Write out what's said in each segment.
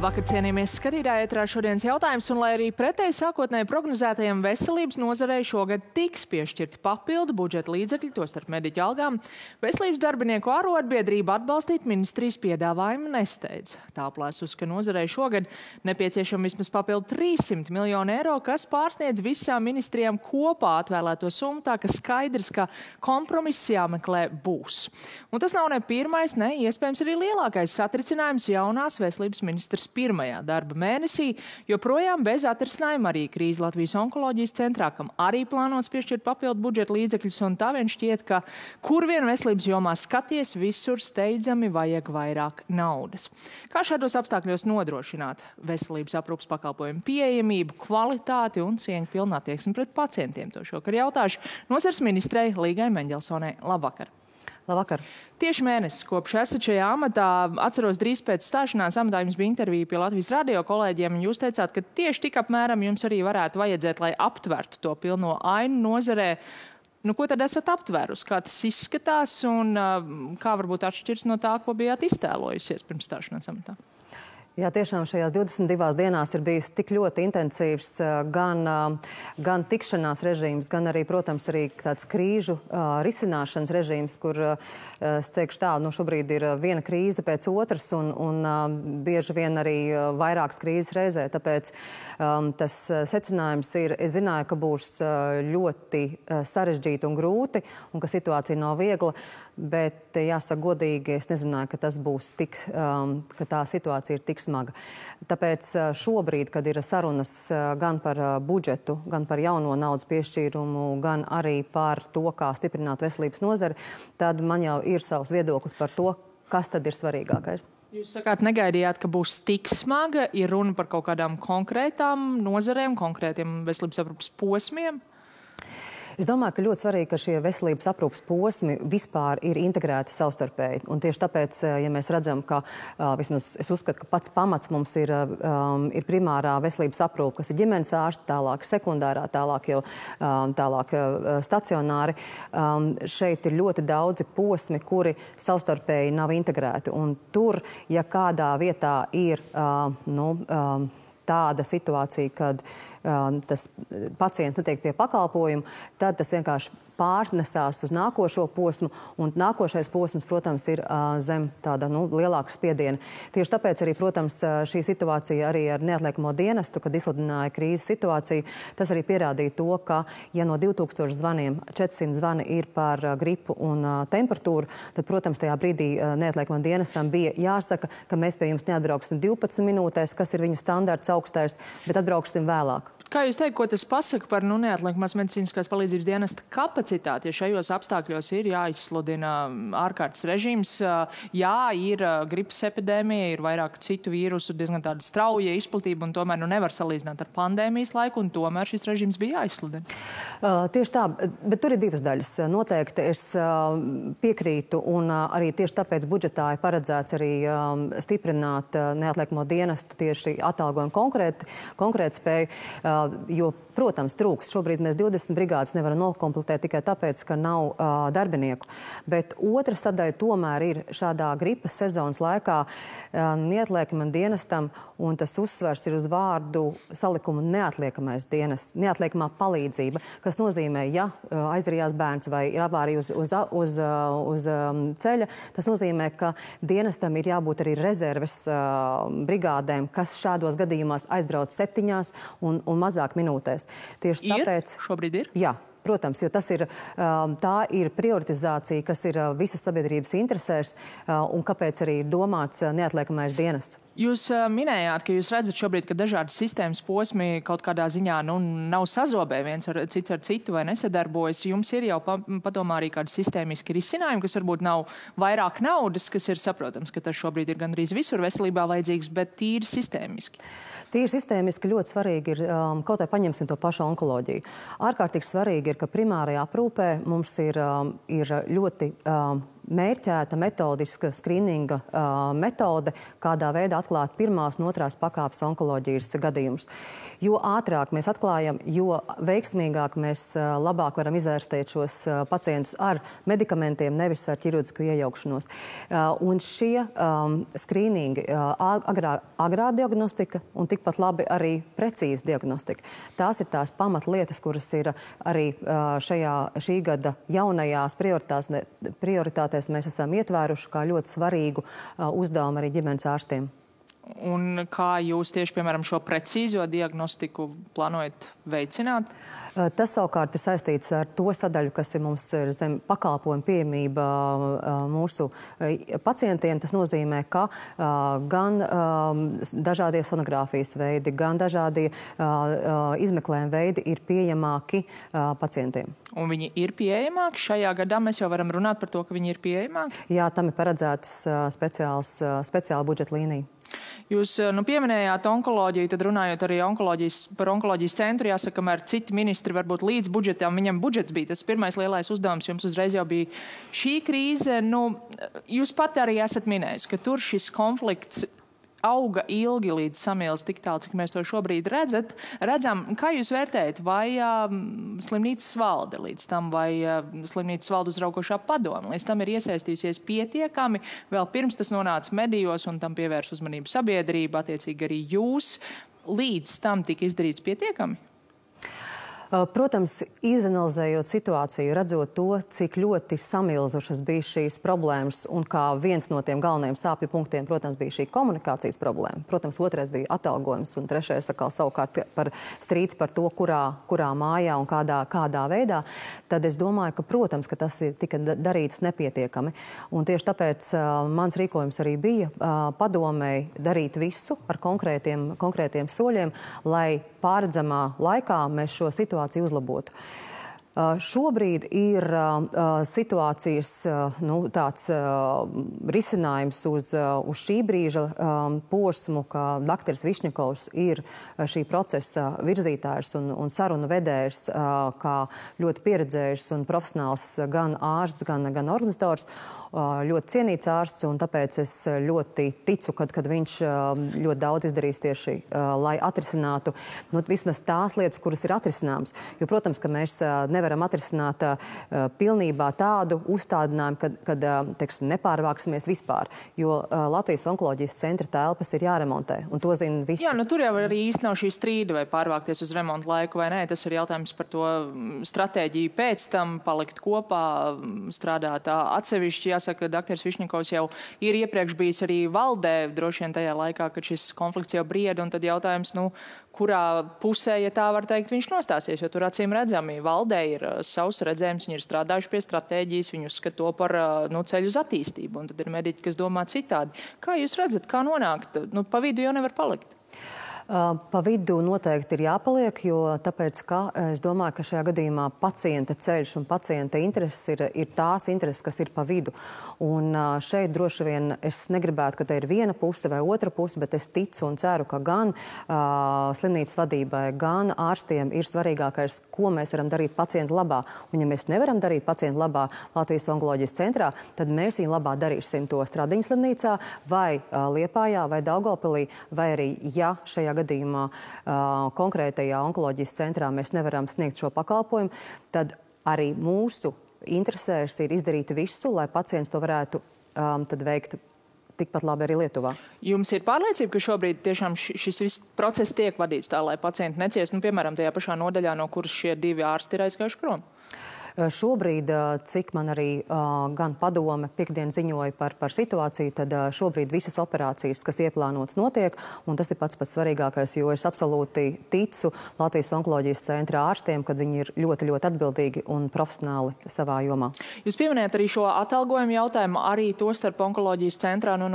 Labvakar, cienījamies skatītāji, ētrā šodienas jautājums, un lai arī pretēji sākotnēji prognozētajiem veselības nozarei šogad tiks piešķirti papildu budžeta līdzekļi, tostarp mediķu algām, veselības darbinieku arotbiedrība atbalstīt ministrijas piedāvājumu nesteidz. Tā aplēsus, ka nozarei šogad nepieciešama vismaz papildu 300 miljonu eiro, kas pārsniedz visām ministrijām kopā atvēlēto summu, tā ka skaidrs, ka kompromiss jāmeklē būs. Un tas nav ne pirmais, ne iespējams arī lielākais satricinājums jaunās veselības ministrs pirmajā darba mēnesī, joprojām bez atrisinājuma arī krīze Latvijas onkoloģijas centrā, kam arī plānots piešķirt papildu budžeta līdzekļus, un tā vien šķiet, ka kur vien veselības jomā skaties, visur steidzami vajag vairāk naudas. Kā šādos apstākļos nodrošināt veselības aprūpas pakalpojumu pieejamību, kvalitāti un cieņpilnu attieksmi pret pacientiem? To šokar jautāšu nozares ministrei Līgai Meņģelsonai. Labvakar! Labvakar! Tieši mēnesis kopš esat šajā amatā. Atceros, drīz pēc stāšanās amatā jums bija intervija pie Latvijas radio kolēģiem, un jūs teicāt, ka tieši tik apmēram jums arī varētu vajadzēt, lai aptvertu to pilno ainu nozarē. Nu, ko tad esat aptvērusi? Kā tas izskatās un kā varbūt atšķirs no tā, ko bijāt iztēlojusies pirms stāšanās amatā? Jā, tiešām šajās 22 dienās ir bijis tik ļoti intensīvs gan tikšanās režīms, gan arī, protams, arī tāds krīžu risināšanas režīms, kur, es teikšu tā, šobrīd ir viena krīze pēc otras un bieži vien arī vairākas krīzes reizē. Tāpēc tas secinājums ir, es zināju, ka būs ļoti sarežģīti un grūti un ka situācija nav viegla, bet jāsaka godīgi, es nezināju, ka tas būs tik, ka tā situācija ir tik smaga. Tāpēc šobrīd, kad ir sarunas gan par budžetu, gan par jauno naudas piešķīrumu, gan arī par to, kā stiprināt veselības nozari, tad man jau ir savs viedoklis par to, kas tad ir svarīgākais. Jūs sakāt, negaidījāt, ka būs tik smaga, ir runa par kaut kādām konkrētām nozarēm, konkrētiem veselības aprūpas posmiem? Es domāju, ka ļoti svarīgi, ka šie veselības aprūpas posmi vispār ir integrēti savstarpēji. Un tieši tāpēc, ja mēs redzam, ka vismaz es uzskatu, ka pats pamats mums ir primārā veselības aprūpa, kas ir ģimenes ārsti, tālāk sekundārā, tālāk stacionāri. Šeit ir ļoti daudzi posmi, kuri savstarpēji nav integrēti. Un tur, ja kādā vietā ir tāda situācija, kad tas pacients netiek pie pakalpojumu, tad tas vienkārši pārnesās uz nākošo posmu, un nākošais posms, protams, ir zem tāda lielāka spiediena. Tieši tāpēc arī, protams, šī situācija arī ar neatliekamo dienestu, kad izsludināja krīzes situāciju, tas arī pierādīja to, ka, ja no 2000 zvaniem 400 zvani ir par gripu un temperatūru, tad, protams, tajā brīdī neatliekamam dienestam bija jāsaka, ka mēs pie jums neatbrauksim 12 minūtēs, kas ir viņu standarts augstais, bet atbrauksim vēlāk. Kā jūs teikt, ko tas pasaka par neatliekamās medicīniskās palīdzības dienesta kapacitāti, ja šajos apstākļos ir jāizsludina ārkārtas režīms, jā, ir gripas epidēmija, ir vairāk citu vīrusu, diezgan tāda strauja izplatība, un tomēr nevar salīdzināt ar pandēmijas laiku, un tomēr šis režīms bija jāizsludina? Tieši tā, bet tur ir divas daļas. Noteikti es piekrītu, un arī tieši tāpēc budžetā ir paredzēts arī stiprināt neatliekamo dienestu tieši atalgojumu konkrēt spēju. Jo, protams, trūks. Šobrīd mēs 20 brigādes nevaram nokompletēt tikai tāpēc, ka nav darbinieku. Bet otra sadaļa tomēr ir šādā gripas sezonas laikā neatliekamam dienestam, un tas uzsvers ir uz vārdu salikumu neatliekamais dienests, neatliekamā palīdzība, kas nozīmē, ja aizrījās bērns vai ir avārija uz ceļa, tas nozīmē, ka dienestam ir jābūt arī rezerves brigādēm, kas šādos gadījumās aizbrauc 7 un mazāk minūtēs. Tieši tāpēc... Šobrīd ir? Jā. Protams, jo tā ir prioritizācija, kas ir visas sabiedrības interesēs un kāpēc arī ir domāts neatliekamais dienests. Jūs minējāt, ka jūs redzat šobrīd, ka dažādas sistēmas posmi kaut kādā ziņā nav sazobē viens cits ar citu vai nesadarbojas. Jums ir jau padomā arī kādi sistēmiski risinājumi, kas varbūt nav vairāk naudas, kas ir saprotams, ka tas šobrīd ir gandrīz visur veselībā vajadzīgs, bet tīri sistēmiski. Tīri sistēmiski ļoti svarīgi ir, kaut vai paņemsim to pašu onkoloģiju. Ārkārtīgi svarīgi ir, ka primārajā aprūpē mums ir ļoti mērķēta metodiska skrīninga metode, kādā veidā atklāt pirmās un otrās pakāpes onkoloģijas gadījumus. Jo ātrāk mēs atklājam, jo veiksmīgāk mēs labāk varam izārstēt šos pacientus ar medikamentiem, nevis ar ķirurģisku iejaukšanos. Un šie skrīningi, agrā diagnostika un tikpat labi arī precīza diagnostika. Tās ir tās pamatlietas, kuras ir arī šī gada jaunajās prioritātēs mēs esam ietvēruši kā ļoti svarīgu uzdevumu arī ģimenes ārstiem. Un kā jūs tieši, piemēram, šo precīzo diagnostiku plānojat veicināt? Tas savukārt ir saistīts ar to sadaļu, kas ir mums zem pakalpojumu pieejamība mūsu pacientiem. Tas nozīmē, ka gan dažādie sonogrāfijas veidi, gan dažādie izmeklējuma veidi ir pieejamāki pacientiem. Un viņi ir pieejamāki? Šajā gadā mēs jau varam runāt par to, ka viņi ir pieejamāki? Jā, tam ir paredzētas speciāla budžeta līnija. Jūs pieminējāt onkoloģiju, tad runājot arī par onkoloģijas centru, jāsaka, kamēr citi ministri varbūt līdz budžetām, viņam budžets bija tas pirmais lielais uzdevums, jums uzreiz jau bija šī krīze. Jūs pati arī esat minējis, ka tur šis konflikts auga ilgi līdz samils tik tālu, cik mēs to šobrīd redzam. Kā jūs vērtējat, vai slimnīcas valde līdz tam, vai slimnīcas valde uzraugošā padome līdz tam ir iesaistījusies pietiekami, vēl pirms tas nonāca medijos un tam pievērs uzmanību sabiedrība, attiecīgi arī jūs, līdz tam tika izdarīts pietiekami? Protams, izanalizējot situāciju, redzot to, cik ļoti samilzušas bija šīs problēmas un kā viens no tiem galvenajiem sāpju punktiem, protams, bija šī komunikācijas problēma. Protams, otrais bija atalgojums un trešais savukārt par strīds par to, kurā mājā un kādā veidā. Tad es domāju, ka, protams, ka tas tika darīts nepietiekami. Un tieši tāpēc mans rīkojums arī bija padomēji darīt visu ar konkrētiem soļiem, lai pārredzamā laikā mēs šo situāciju uzlabotu. Šobrīd ir situācijas tāds risinājums uz šī brīža posmu, ka dr. Višņakovs ir šī procesa virzītājs un sarunu vedējs, kā ļoti pieredzējis un profesionāls gan ārsts, gan organizators. Ļoti cienīts ārsts, un tāpēc es ļoti ticu, kad viņš ļoti daudz izdarīs tieši, lai atrisinātu vismaz tās lietas, kuras ir atrisināmas. Jo, protams, ka mēs nevaram atrisināt pilnībā tādu uzstādinājumu, kad nepārvāksimies vispār, jo Latvijas onkoloģijas centra telpas ir jāremontē, un to zina visi. Jā, tur jau arī īsti nav šī strīda, vai pārvākties uz remontu laiku vai nē. Tas ir jautājums par to stratēģiju pēc tam, palikt kopā, strādāt atsevišķi. Jāsaka, ka dr. Višņakovs jau ir iepriekš bijis arī valdē, droši vien tajā laikā, kad šis konflikts jau brieda, un tad jautājums, kurā pusē, ja tā var teikt, viņš nostāsies, jo tur acīm redzami valdē ir savs redzējums, viņi ir strādājuši pie stratēģijas, viņi uzskata to par ceļu uz attīstību, un tad ir mediķi, kas domā citādi. Kā jūs redzat, kā nonākt? Pa vidu jau nevar palikt. Pa vidu noteikti ir jāpaliek, jo tāpēc, ka es domāju, ka šajā gadījumā pacienta ceļš un pacienta intereses ir tās intereses, kas ir pa vidu. Un šeit droši vien es negribētu, ka te ir viena puse vai otra puse, bet es ticu un ceru, ka gan slimnīcas vadībai, gan ārstiem ir svarīgākais, ko mēs varam darīt pacientu labā. Un ja mēs nevaram darīt pacientu labā Latvijas onkoloģijas centrā, tad mēs viņu labā darīsim to Stradiņas slimnīcā vai Liepājā vai Daugavpilī, vai arī, ja šajā gadījumā konkrētajā onkoloģijas centrā mēs nevaram sniegt šo pakalpojumu, tad arī mūsu interesēs ir izdarīt visu, lai pacients to varētu tad veikt tikpat labi arī Lietuvā. Jums ir pārliecība, ka šobrīd tiešām šis viss process tiek vadīts tā, lai pacienti neciest, piemēram, tajā pašā nodaļā, no kuras šie divi ārsti ir aizgājuši prom? Šobrīd, cik man arī gan padome piekdien ziņoja par situāciju, tad šobrīd visas operācijas, kas ieplānotas, notiek, un tas ir pats svarīgākais, jo es absolūti ticu Latvijas onkoloģijas centra ārstiem, kad viņi ir ļoti, ļoti atbildīgi un profesionāli savā jomā. Jūs pieminējat arī šo atalgojumu jautājumu, arī to starp onkoloģijas centrā, no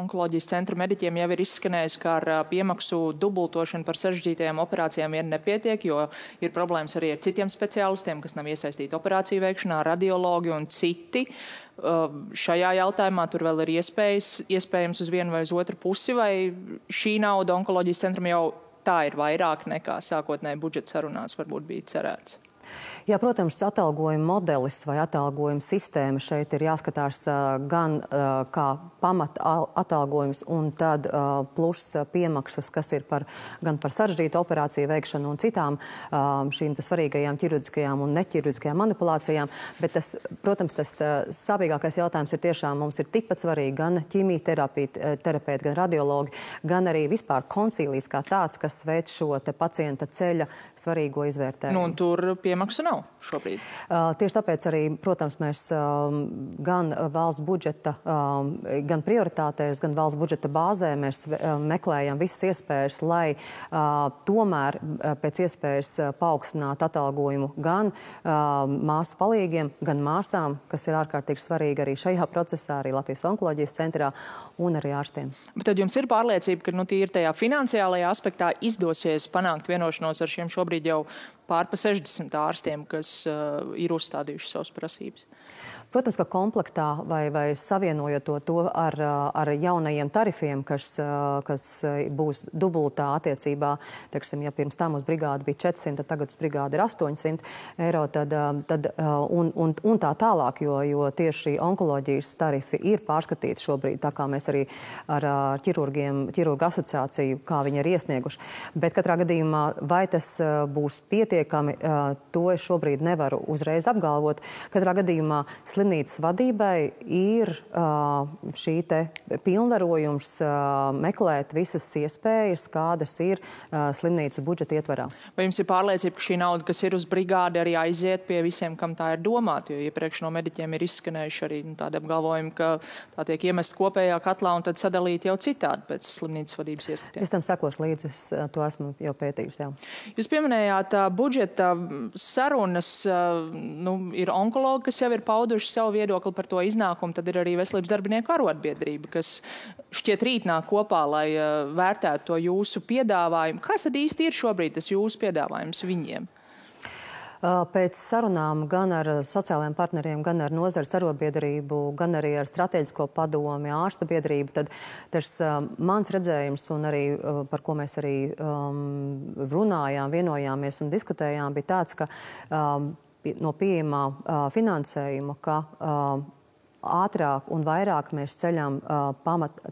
onkoloģijas centra mediķiem jau ir izskanējis, ka ar piemaksu dubultošanu par sarežģītajām operācijām ir nepietiek, jo ir problēmas arī ar citiem speciālistiem, kas nav iesaistīti operāciju veikšanā, radiologi un citi. Šajā jautājumā tur vēl ir iespējams uz vienu vai uz otru pusi, vai šī nauda onkoloģijas centram jau tā ir vairāk nekā sākotnēji budžeta sarunās varbūt bija cerēts? Jā, protams, atalgojuma modelis vai atalgojuma sistēma šeit ir jāskatās gan kā pamata atalgojums un tad plus piemaksas, kas ir gan par sarežģītu operāciju veikšanu un citām šīm svarīgajām ķirurģiskajām un neķirurģiskajām manipulācijām. Bet tas, protams, tas sāpīgākais jautājums ir tiešām mums ir tikpat svarīgi gan ķīmijterapeiti, gan radiologi, gan arī vispār koncīlijs kā tāds, kas veic šo te pacienta ceļa svarīgo izvērtējumu. Nu, un tur piemaksu nav šobrīd. Tieši tāpēc arī, protams, mēs gan valsts budžeta, gan prioritātēs, gan valsts budžeta bāzē mēs meklējam visas iespējas, lai tomēr pēc iespējas paaugstinātu atalgojumu gan māsu palīgiem, gan māsām, kas ir ārkārtīgi svarīgi arī šajā procesā, arī Latvijas onkoloģijas centrā un arī ārstiem. Bet tad jums ir pārliecība, ka tīri tajā finansiālajā aspektā izdosies panākt vienošanos ar šiem šobrīd jau pār pa 60 ārstiem, kas ir uzstādījuši savas prasības? Protams, ka komplektā vai savienojot to ar jaunajiem tarifiem, kas būs dubultā attiecībā, teiksim, ja pirms tam uz brigādi bija 400, tad tagad uz brigādi ir 800 eiro, un tā tālāk, jo tieši onkoloģijas tarifi ir pārskatīti šobrīd, tā kā mēs arī ar ķirurgu asociāciju, kā viņi ir iesnieguši. Bet katrā gadījumā, vai tas būs pietiekami, to es šobrīd nevaru uzreiz apgalvot. Katrā gadījumā slimnīcas vadībai ir šī te pilnvarojums meklēt visas iespējas, kādas ir slimnīcas budžeta ietvarā. Vai jums ir pārliecība, ka šī nauda, kas ir uz brigādi, arī aiziet pie visiem, kam tā ir domāta? Jo iepriekš no mediķiem ir izskanējuši arī tādi apgalvojumi, ka tā tiek iemest kopējā katlā un tad sadalīt jau citādi pēc slimnīcas vadības ieskatiem. Es tam sekošu līdzi, es to esmu jau pētījusi. Jā. Jūs pieminējāt budžeta sarunas, ir onkologi, kas jau ir pauduši savu viedokli par to iznākumu, tad ir arī veselības darbinieku arotbiedrība, kas šķiet rīt nāk kopā, lai vērtētu to jūsu piedāvājumu. Kas tad īsti ir šobrīd tas jūsu piedāvājums viņiem? Pēc sarunām gan ar sociālajiem partneriem, gan ar nozares arotbiedrību, gan arī ar strateģisko padomi, ārsta biedrību, tad tas mans redzējums un arī par ko mēs arī runājām, vienojāmies un diskutējām, bija tāds, ka no pieejamā finansējuma, ka ātrāk un vairāk mēs ceļam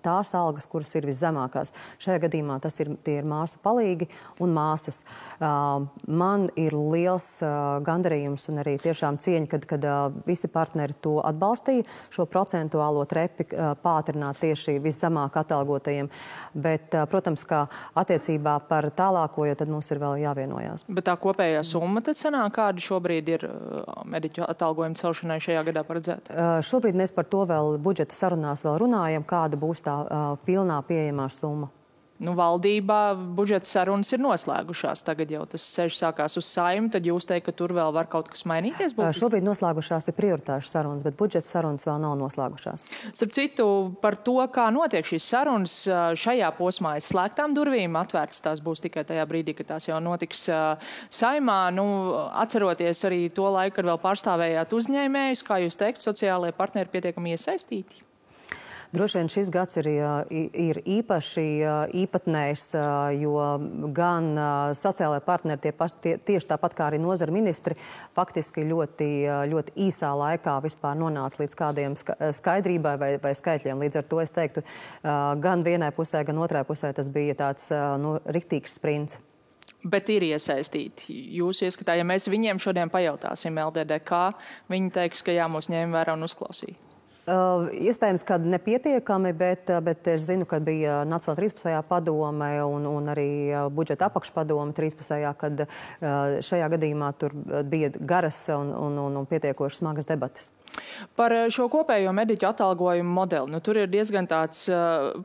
tās algas, kuras ir viszemākās. Šajā gadījumā tie ir māsu palīgi un māsas. Man ir liels gandarījums un arī tiešām cieņa, kad visi partneri to atbalstīja, šo procentuālo trepi pātrināt tieši viszemāk atalgotajiem. Bet, protams, ka attiecībā par tālāko, jo tad mums ir vēl jāvienojās. Bet tā kopējā summa tad sanāk, kāda šobrīd ir mediķu atalgojuma celšanai šajā gadā paredzēta? Šobrīd mēs par to vēl budžeta sarunās vēl runājam, kāda būs tā pilnā pieejamā summa. Valdībā budžeta sarunas ir noslēgušās. Tagad jau tas ceļš sākās uz Saeimu, tad jūs teikt, ka tur vēl var kaut kas mainīties? Šobrīd noslēgušās ir prioritāšu sarunas, bet budžeta sarunas vēl nav noslēgušās. Starp citu, par to, kā notiek šīs sarunas, šajā posmā aiz slēgtām durvīm, atvērtas tās būs tikai tajā brīdī, kad tās jau notiks Saeimā. Atceroties arī to laiku, kad vēl pārstāvējāt uzņēmējus, kā jūs teikt, sociālajie partneri pietiekami iesaistīti? Droši vien šis gads ir īpaši īpatnējs, jo gan sociālajie partneri tieši tāpat kā arī nozara ministri faktiski ļoti īsā laikā vispār nonāca līdz kādiem skaidrībai vai skaitļiem. Līdz ar to es teiktu, gan vienai pusē, gan otrai pusē tas bija tāds riktīgs sprints. Bet ir iesaistīti. Jūsu ieskatā, ja mēs viņiem šodien pajautāsim LDDK, viņi teiks, ka jā, mūs ņēma vērā un uzklausīja. Iespējams, ka nepietiekami, bet es zinu, ka bija Nacionālā 13. padome un arī budžeta apakšpadome 13. kad šajā gadījumā tur bija garas un pietiekoši smagas debates. Par šo kopējo mediķu atalgojumu modeli. Tur ir diezgan tāds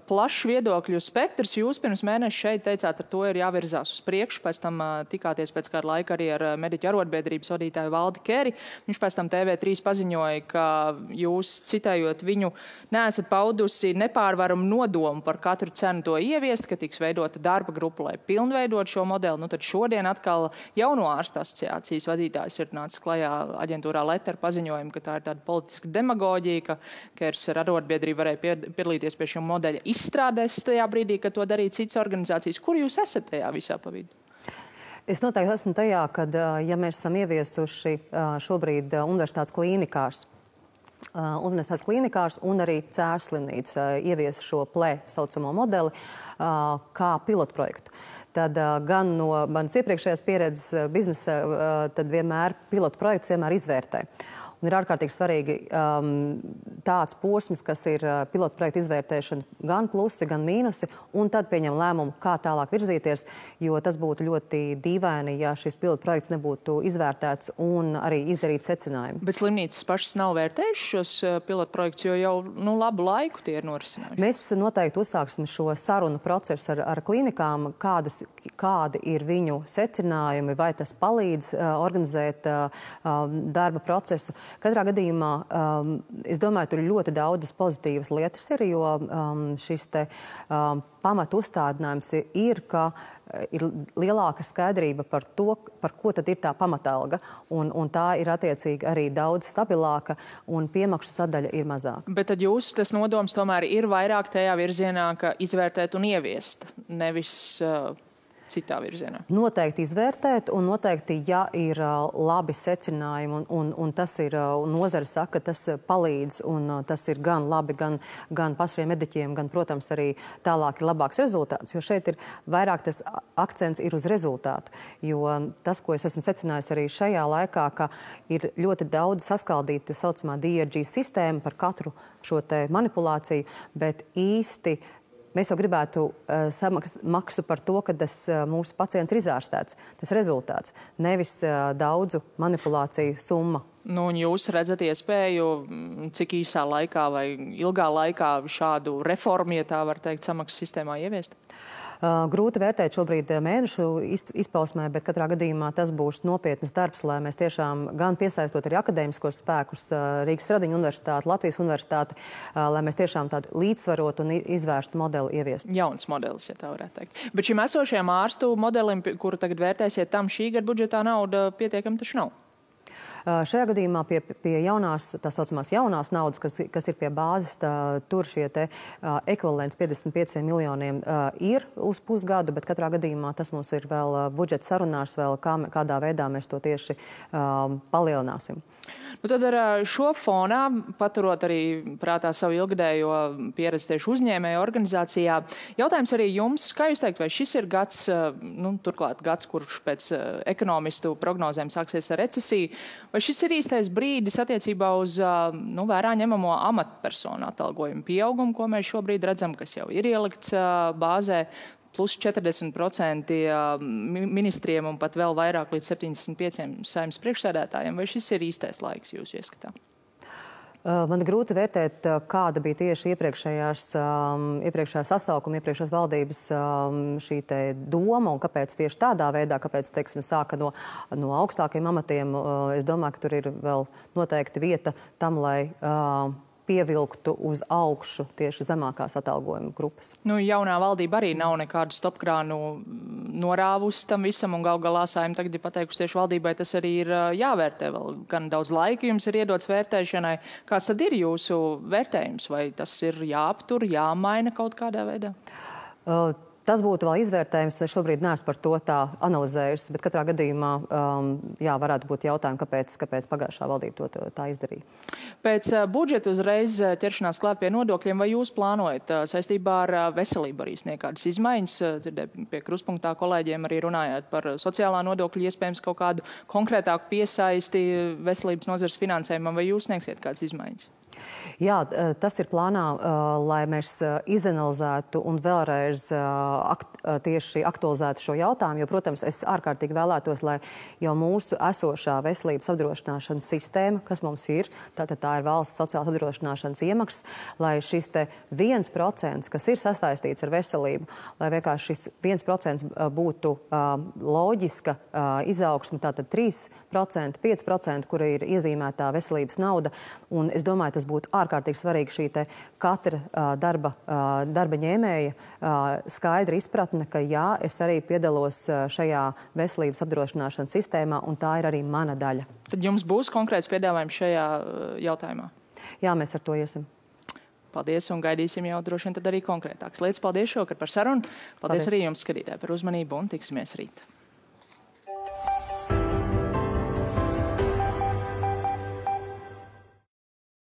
plašs viedokļu spektrs. Jūs pirms mēneša šeit teicāt, ar to ir jāvirzās uz priekšu. Pēc tam tikāties pēc kāda laika arī ar mediķu arotbiedrības vadītāju Valdi Keri. Viņš pēc tam TV3 paziņoja, ka jūs, citējot viņu, neesat paudusi nepārvaramu nodomu par katru cenu to ieviest, ka tiks veidota darba grupa, lai pilnveidot šo modeli. Tad šodien atkal jauno ārstu asociācijas vadītājs ir nācis klajā aģentūrā Letter paziņojumu, ka tā ir tāda politiska demagoģija, ka Kers ar arotbiedrību varēja piedalīties pie šī modeļa izstrādēs tajā brīdī, kad to darīja citas organizācijas. Kur jūs esat tajā visā pa vidu? Es noteikti esmu tajā, ka, ja mēs esam ieviesuši šobrīd universitātes klīnikās un arī Cēsu slimnīca ievies šo PLE saucamo modeli kā pilotprojektu. Tad gan no manas iepriekšējās pieredzes biznesa, tad vienmēr pilotprojekts vienmēr izvērtē. Un ir ārkārtīgi svarīgi tāds posms, kas ir pilotprojekta izvērtēšana, gan plusi, gan mīnusi, un tad pieņem lēmumu, kā tālāk virzīties, jo tas būtu ļoti dīvaini, ja šis pilotprojekts nebūtu izvērtēts un arī izdarīt secinājumu. Bet slimnīcas pašas nav vērtējušas šos pilotprojektus, jo jau labu laiku tie ir norisinājuši. Mēs noteikti uzsāksim šo sarunu procesu ar klīnikām, kādi ir viņu secinājumi, vai tas palīdz organizēt darba procesu. Katrā gadījumā, es domāju, tur ir ļoti daudzas pozitīvas lietas, jo šis te pamatu uzstādinājums ir, ka ir lielāka skaidrība par to, par ko tad ir tā pamatalga, un tā ir attiecīgi arī daudz stabilāka, un piemaksu sadaļa ir mazāka. Bet tad jūsu tas nodoms tomēr ir vairāk tajā virzienā, ka izvērtēt un ieviest, nevis citā virzienā? Noteikti izvērtēt, un noteikti, ja ir labi secinājumi, un tas ir, nozare saka, ka tas palīdz, un tas ir gan labi, gan pašiem mediķiem, gan, protams, arī tālāk ir labāks rezultāts, jo šeit ir vairāk tas akcents ir uz rezultātu, jo tas, ko es esmu secinājis arī šajā laikā, ka ir ļoti daudz saskaldīta saucamā DRG sistēma par katru šo te manipulāciju, bet īsti mēs jau gribētu maksu par to, ka tas mūsu pacients ir izārstēts. Tas rezultāts, nevis daudzu manipulāciju summa. Un jūs redzat iespēju, cik īsā laikā vai ilgā laikā šādu reformu, ja tā var teikt, samaksas sistēmā ieviest? Grūti vērtēt šobrīd mēnešu izpausmē, bet katrā gadījumā tas būs nopietnas darbs, lai mēs tiešām gan piesaistot arī akadēmiskos spēkus, Rīgas Stradiņu universitāti, Latvijas universitāti, lai mēs tiešām tādu līdzsvarotu un izvērstu modeli ieviestu. Jauns modelis, ja tā varētu teikt. Bet šim esošajam ārstu modelim, kuru tagad vērtēsiet, tam šī gada budžetā nauda pietiekami taču nav. Šajā gadījumā pie jaunās, tā saucamās jaunās naudas, kas ir pie bāzes, tur šie te ekvivalents 55 miljoniem ir uz pusgadu, bet katrā gadījumā tas mums ir vēl budžeta sarunās, vēl kādā veidā mēs to tieši palielināsim. Nu, tad ar šo fonā, paturot arī prātā savu ilgadējo pieredzi tieši uzņēmēju organizācijā, jautājums arī jums, kā jūs teikt, vai šis ir gads, turklāt gads, kurš pēc ekonomistu prognozēm sāksies ar recesiju, vai šis ir īstais brīdis attiecībā uz vērā ņemamo amatpersonu atalgojumu pieaugumu, ko mēs šobrīd redzam, kas jau ir ielikts bāzē, plus 40% ministriem un pat vēl vairāk līdz 75 saimnes priekšsēdētājiem, vai šis ir īstais laiks jūsu ieskatā? Man ir grūti vērtēt, kāda bija tieši iepriekšējā sasaukuma, iepriekšējās valdības šī te doma un kāpēc tieši tādā veidā, kāpēc, teiksim, sāka no augstākiem amatiem. Es domāju, ka tur ir vēl noteikti vieta tam, lai pievilktu uz augšu tieši zemākās atalgojuma grupas. Jaunā valdība arī nav nekādu stopkrānu norāvusi tam visam, un gal galā Saeima tagad ir pateikusi tieši valdībai, tas arī ir jāvērtē vēl. Gan daudz laika jums ir iedots vērtēšanai. Kāds tad ir jūsu vērtējums? Vai tas ir jāaptur, jāmaina kaut kādā veidā? Tas būtu vēl izvērtējums, vai šobrīd neesmu par to tā analizējusi, bet katrā gadījumā, varētu būt jautājumi, kāpēc pagājušā valdība to tā izdarīja. Pēc budžeta uzreiz ķeršanās klāt pie nodokļiem, vai jūs plānojat saistībā ar veselību arī sniegt kādas izmaiņas? Pie kruspunktā kolēģiem arī runājāt par sociālā nodokļa, iespējams kaut kādu konkrētāku piesaisti veselības nozares finansējumam, vai jūs sniegsiet kādas izmaiņas? Jā, tas ir plānā, lai mēs izanalizētu un vēlreiz tieši aktualizētu šo jautājumu, jo, protams, es ārkārtīgi vēlētos, lai jau mūsu esošā veselības apdrošināšanas sistēma, kas mums ir, tātad tā ir valsts sociālās apdrošināšanas iemaksas, lai šis te 1%, kas ir sasaistīts ar veselību, lai vienkārši šis 1% būtu loģiska izaugsme, tātad 3%, 5%, kura ir iezīmētā veselības nauda, un es domāju, tas būtu ārkārtīgi svarīgi šī te katra darba ņēmēja skaidra izpratne, ka jā, es arī piedalos šajā veselības apdrošināšanas sistēmā, un tā ir arī mana daļa. Tad jums būs konkrēts piedāvājums šajā jautājumā? Jā, mēs ar to iesim. Paldies, un gaidīsim jau droši vien tad arī konkrētākas lietas. Paldies šovakar par sarunu. Paldies arī jums, skatītāji, par uzmanību, un tiksimies rīt.